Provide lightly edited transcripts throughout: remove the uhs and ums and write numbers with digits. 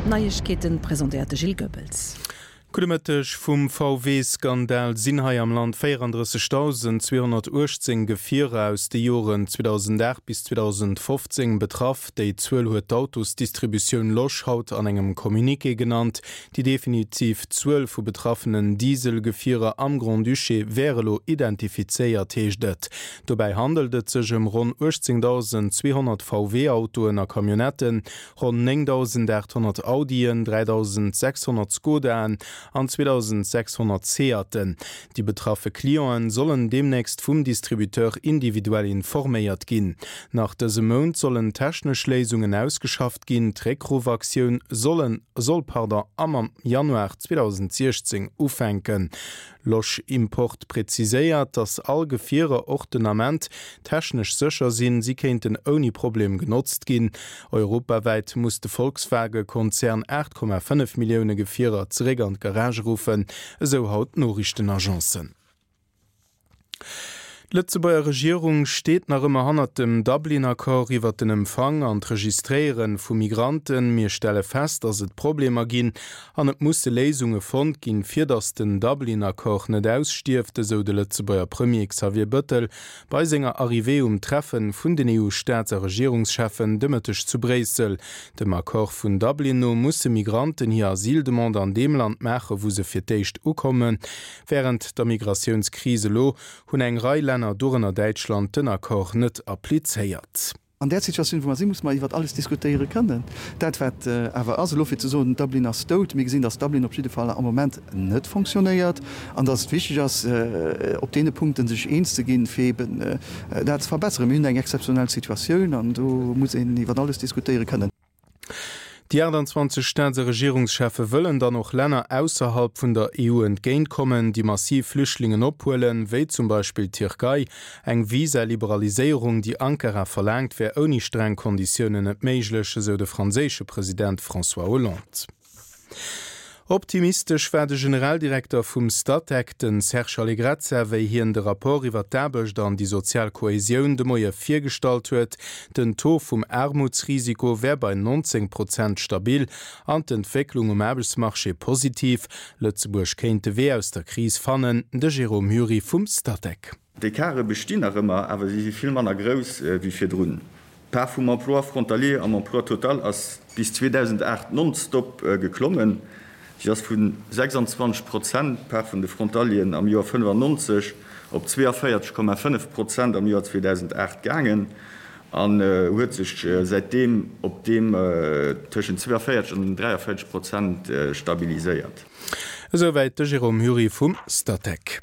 D'Neiegkeeten presentéiert de Gilles Goebbels. Gudde Mëtteg. Vum VW-Skandal sinn hei am Land 34.218 Gefierer aus de Joren 2008 bis 2015 betraff. Déi Zuel huet d'Autosdistributioun Losch haut an engem Communiqué genannt. Déi definitiv Zuel vu betraffenen Diesel-Gefierer am Grand-Duché wär elo identifizéiert, heescht et. Dobäi handelt et sech ëm ronn 18.200 VW-Autoen a Camionnetten, ronn 9.800 Audien, 3.600 Skodaen an 2.600 Seaten. Déi betraffe Clienten sollen deemnächst vum Distributeur individuell informéiert ginn. Nach dëse Mount sollen technesch Léisungen ausgeschafft ginn. D'Réckruffaktioun sollen soll pardon am am Januar 2016 ufänken. Losch Import präziséiert, datt all Gefierer och den Ament technesch sécher sinn, si kéinten ouni Problem genotzt ginn. Europawäit muss de Volkswage-Konzern 8,5 Millioune Gefierer zeréck an d'Garage ruffen, esou haut d'Noriichtenagencen. D'Lëtzebuerger Regierung steet nach ëmmer hannert dem Dublin-Accord iwwert den Empfang an d'Registréiere vu Migranten. Mir stelle fest, datt et Problemer ginn an et musse Léisunge fonnt ginn, fir datt den Dublin-Accord net ausstierft, esou de Lëtzebuerger Premier Xavier Bëttel bei senger Arrivée um Treffe vun den EU-Staats a Regierungscheffen de Mëtteg zu Bréissel. Dem Accord vun Dublin no musse Migranten hir Asyldemande an deem Land maache wou se fir d'éischt ukommen. Wärend der Migratiounskris elo hunn eng Rei Länner, dorënner Däitschland, den Accord net applizéiert. An där Situatioun, wou mer sinn, musse mer iwwert alles diskutéiere kënnen. Dat, wat awer ass elo, fir ze soen, Dublin ass dout, mir gesinn, datt Dublin op jidde Fall am Moment net fonctionnéiert an datt et wichteg ass, op deene Punkte sech eens ze ginn, fir eeben dat ze verbesseren. Mir hunn eng exzeptionell Situatioun an do muss een iwwert alles diskutéiere kënnen. Déi 28 Staats a Regierungscheffe wëllen dann och Länner ausserhalb vun der EU entgéintkommen, déi massiv Flüchtlingen ophuelen, wéi zum Beispill d'Tierkei. Eng Visa-Liberaliséierung, déi Ankara verlaangt, wär ouni streng Konditiounen net méiglech, esou de franséische President François Hollande. Optimistesch war de Generaldirekter vum Statec, de Serge Allegrezza, wéi hien de Rapport iwwer d'Aarbecht an déi sozial Kohäsioun de Moie virgestallt huet. Den Taux vum Aarmutsrisiko wär bei 19 Prozent stabil an d'Entwécklung um Aarbechtsmarché positiv. Lëtzebuerg kéint de Wee aus der Kris fannen, de Jérôme Hury vum Statec. D'Ecarte bestinn nach ëmmer, awer si si vill manner grouss wéi virdrun. D'Part vum Emploi frontalier am Emploi total ass bis 2008 nonstop geklommen. Si ass vu 26 Prozent Part vun de Frontalieren am Joer 95 op 42,5 Prozent am Joer 2008 gaangen an huet sech säitdeem op deem tëschent 42 an 43 Prozent stabiliséiert. Esouwäit de Jérôme Hury vum Statec.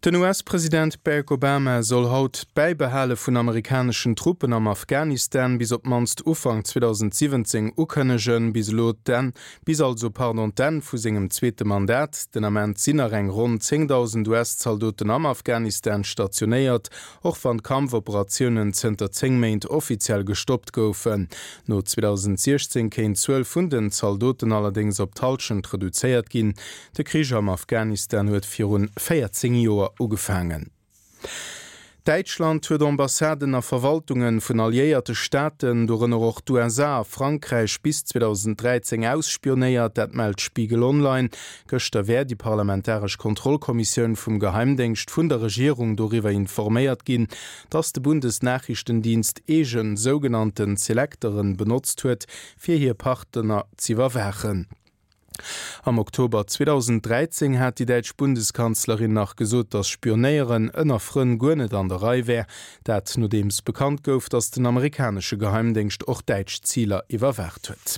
Den US-President Barack Obama soll haut d'Bäibehale vun amerikaneschen Truppen am Afghanistan bis op d'mannst Ufank 2017 ukënnegen, bis elo d'Enn, bis also, pardon, d'Enn vu sengem zweete Mandat. Den Ament sinn nach eng ronn 10.000 US-Zaldoten am Afghanistan stationéiert, och wann d'Kampfoperatiounen zënter 10 Méint offiziell gestoppt goufen. No 2016 kéint d'Zuel vun den Zaldoten allerdéngs op d'Hallschent reduzéiert ginn. De Krich am Afghanistan huet virun 14 Joer ugefaangen. Däitschland huet Ambassaden a Verwaltunge vun alliéierte Staaten, dorënner och d'USA a Frankräich, bis 2013 ausspionéiert. Dat mellt Spiegel Online. Gëschter wär déi parlamentaresch Kontrollkommissioun vum Geheimdéngscht vun der Regierung doriwwer informéiert ginn, datt de Bundesnachrichtendienst eege sougenannten Selekteren benotzt huet, fir hir Partner z'iwwerwaachen. Am Oktober 2013 hat déi däitsch Bundeskanzlerin nach gesot, datt Spionéieren ënner Frënn guer net an der Rei wär. Dat nodeems bekannt gouf, datt den amerikanesche Geheimdéngscht och däitsch Ziler iwwerwaacht huet.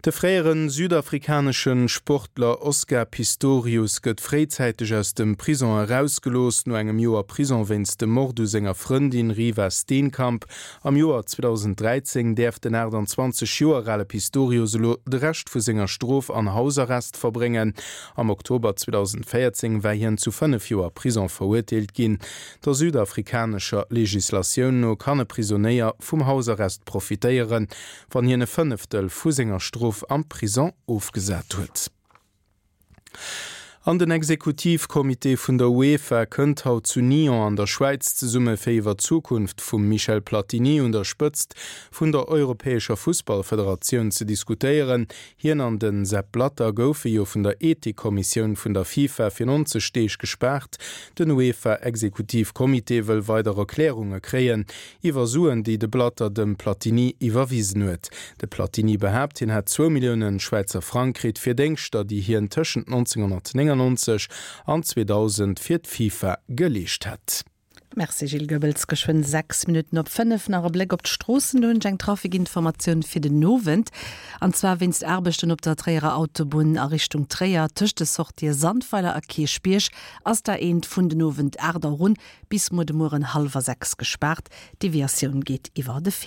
De fréiere südafrikanesche Sportler Oscar Pistorius gëtt fréizäiteg aus dem Prison erausgelooss. No engem Joer Prison wéinst dem Mord u senger Frëndin Reeva Steenkamp Am Joer 2013 däerf den 28 Joer ale Pistorius elo de Rescht vu senger Strof an Hausarrest verbréngen. Am Oktober 2014 war hien zu 5 Joer Prison verurteelt ginn. Der südafrikanescher Legislatioun no kann e Prisonéier vum Hausarrest profitéieren, wann hien e Fënneftel vu senger Strof am Prison ofgesat huet. An den Exekutivcomité vun der UEFA kënnt haut zu Nyon an der Schwäiz zesumme fir iwwer d'Zukunft vum Michel Platini un der Spëtzt vun der europäescher Fussballfederatioun ze diskutéieren. Hien an de Sepp Blatter goufe jo vun der Ethikkommissioun vun der FIFA fir 90 Deeg gespaart. Den UEFA-Exekutivcomité wëll weider Erklärunge kréien iwwer Suen, déi de Blatter dem Platini iwwerwisen huet. De Platini behaapt, hien hätt zwou Millioune Schwäizer Frang kritt fir Déngschter, déi hien tëschent 1999 an 2000 fir d'FIFA geleescht hätt. Merci Gilles Goebbels. Geschwënn 6 Minutten op 5. Nach e Bléck op d'Stroossen. Do hunn ech eng Trafikinformatioun fir den Owend. An zwar wéinst Aarbechten op der Tréierer Autobunn a Richtung Tréier tëscht de Sortië Sandweiler a Kierchbierg ass d'A1 vun den Owend 8 Auer un bis muer de Mueren hallwer 6 gespaart. D'Deviatioun geet iwwer de Findel.